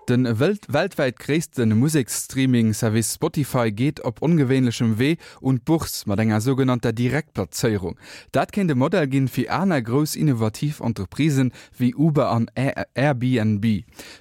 De weltwäit gréisste Museksstreaming-Service Spotify geet op ongewéinlechem Wee un d'Bourse mat enger sougenannter Direktplazéierung. Dat kéint e Modell ginn fir aner grouss innovativ Entreprisen wéi Uber an Airbnb.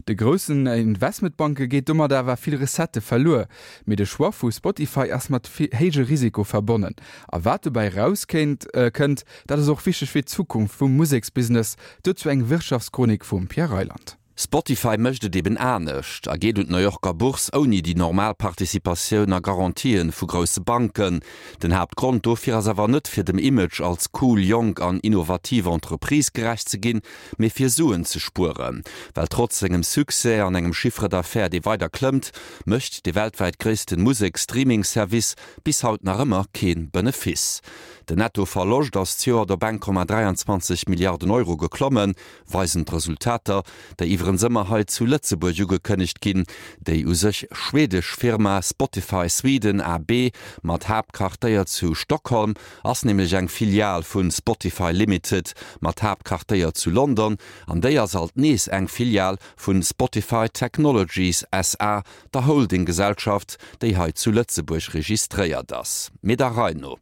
De groussen Investmentbanke geet domat awer vill Recettë verluer. Mee de Choix vu Spotify ass mat héije Risiko verbonnen. A wat dobäi raus kéint kënnt, dat ass och wichteg fir d'Zukunft vum Museksbusiness. Dozou eng Wirtschaftschronik vum Pierre Reyland. Spotify mécht et eben anescht a geet un d'New Yorker Bourse ouni déi normal Participatioun a Garantien vu grousse Banken. Den Haaptgrond dofir ass awer net fir dem Image als cool, jonk an innovativ Entreprise gerecht ze ginn, mee fir Suen ze spueren. Well trotz sengem Succès an engem Chiffre d'affaires dee weider klëmmt, mécht de weltwäit gréissten Musek-Streaming-Service bis haut nach ëmmer kee Benefice. Den Netto-Verloscht ass d'Joert op 1,23 Milliarden Euro geklommen, weisen d'Resultater, déi iwwerens ëmmer hei zu Lëtzebuerg ugekënnegt ginn. Déi u sech schwedesch Firma Spotify Sweden AB mat Haaptquartéier zu Stockholm ass nämlech eng Filial vu Spotify Limited mat Haaptquartéier zu London an déi ass alt nees eng Filial vu Spotify Technologies SA, der Holdinggesellschaft, déi hei zu Lëtzebuerg registréiert ass. Mee der Rei no.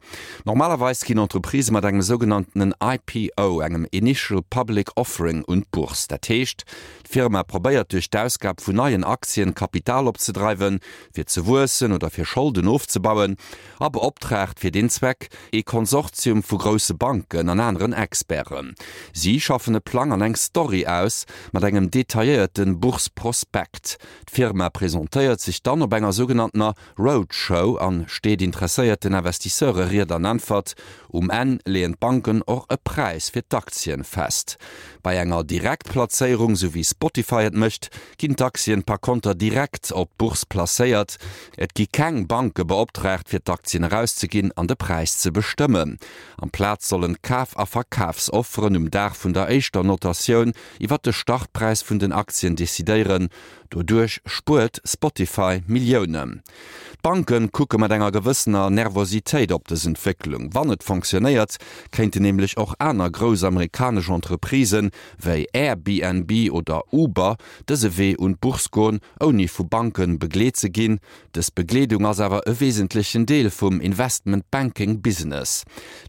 Normalerweis ginn Entreprisë mat engem sougenanntenen IPO, engem Initial Public Offering, un d'Bourse. Dat heescht, d'Firma probéiert duerch d'Ausgab vun neien Aktien Kapital opzedreiwen, fir ze wuessen oder fir Scholden ofzebauen, a beoptraagt fir deen Zweck ee Konsortium vu grousse Banken an aneren Experten. Si schaffen e Plang an eng Story aus, mat engem detailléierte Bourse-Prospekt. D'Firma presentéiert sech dann op enger sougenanntener Roadshow an steet interesséierten Investisseure Ried an Äntwert. Um Enn leeën d'Banken och e Präis fir d'Aktien fest. Bei enger Direktplazéierung, sou wéi Spotify et mécht, ginn d'Aktien par konter direkt op d'Bourse placéiert. Et gi keng Banke beoptraagt fir d'Aktien erauszeginn an de Präis ze bestëmmen. Amplaz sollen d'Kaf a Verkafsofferen um Dag vun der éischter Notatioun iwwer de Startpräis vun den Aktien decidéieren. Doduerch spuert Spotify Milliounen. D'Banke kucke mat enger gewëssener Nervositéit op dës Entwécklung. Wann et fonctionnéiert, kéinten nämlech och aner grouss amerikanesch Entreprisen, wéi Airbnb oder Uber, dëse Wee un d'Bourse goen, ouni vu Banke begleet ze ginn. Dës Begleedung ass awer e wesentlechen Deel vum Investment Banking Business.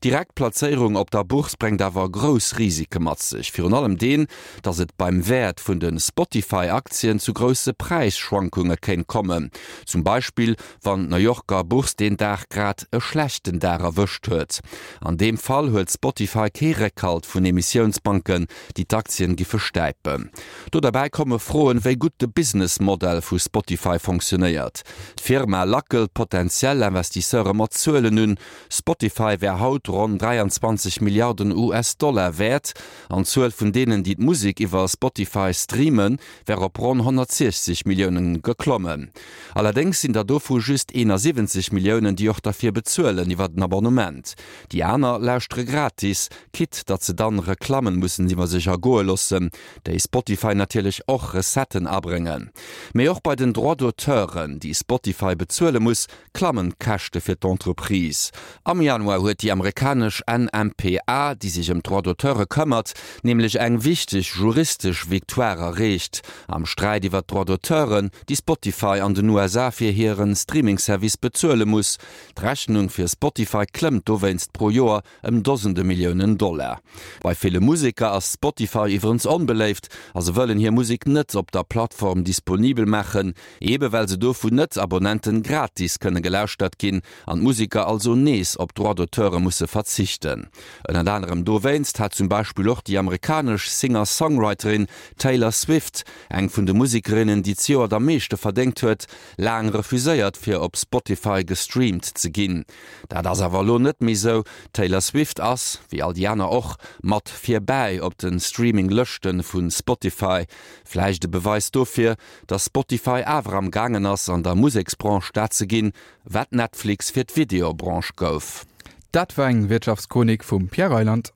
Direkt Plazéierung op der Bourse bréngt awer grouss Risike mat sech, virun allem deen, datt et beim Wäert vun de Spotify-Aktien zu grousse Präisschwankunge kéint kommen, zum Beispill wann d'New Yorker Bourse deen Dag grad e schlechten Dag erwëscht huet. An deem Fall huet Spotify kee Réckhalt vun Emissiounsbanken, déi d'Aktien giffe stäipen. Do derbäi komme Froen, wéi gutt de Business Modell vu Spotify fonctionnéiert. D'Firma lackelt potentiell Investisseure mat Zuelen un, Spotify wär haut ronn 23 Milliarden US-Dollar wäert an d'Zuel vun deenen, déi d'Musek iwwer Spotify streamen, wär op ronn 160 Milliounen geklommen. Allerdéngs sinn der dovu just 71 Milliounen, déi och derfir bezuelen iwwer en Abonnement. Déi aner lauschtere gratis, quitte datt se dann Reklammen mussen iwwer sech ergoe loossen, déi Spotify natierlech och Recetten abréngen. Mee och bei den Droits d'auteuren, déi Spotify bezuele muss, klammen d'Käschte fir d'Entreprise. Am Januar huet déi amerikanesch NMPA, déi sech ëm d'Droits d'auteure këmmert, nämlech eng wichteg juristesch Victoire erreecht am Sträit iwwer d'Droits d'auteuren, déi Spotify an den USA fir hire Streaming-Service bezuele muss. D'Rechnung fir Spotify klëmmt dowéinst pro Joer ëm Dosende Milliounen Dollar. Bei ville Museker ass Spotify iwwerens onbeléift a se wëllen hir Musek net op der Plattform disponibel maachen, ebe well se do vun Net-Abonnenten gratis kënne gelauschtert ginn an d'Museker also nees op Droits d'auteure musse verzichten. Ënnert anerem dowéinst hat zum Beispill och déi amerikanesch Singer-Songwriterin Taylor Swift, eng vun de Musekerinnen, déi zejoert am meeschte verdéngt huet, laang refuséiert fir op Spotify gestreamt ze ginn. Dat ass awer elo net méi sou, D'Taylor Swift ass, wéi all déi aner och, mat virbäi op de Streaming Lëschte vu Spotify. Vläicht e Beweis dofir, dass Spotify awer am gaangen ass an der Museksbranche dat ze ginn, wat Netflix fir d'Videobranche gouf. Dat war eng Wirtschaftschronik vum Pierre Reyland.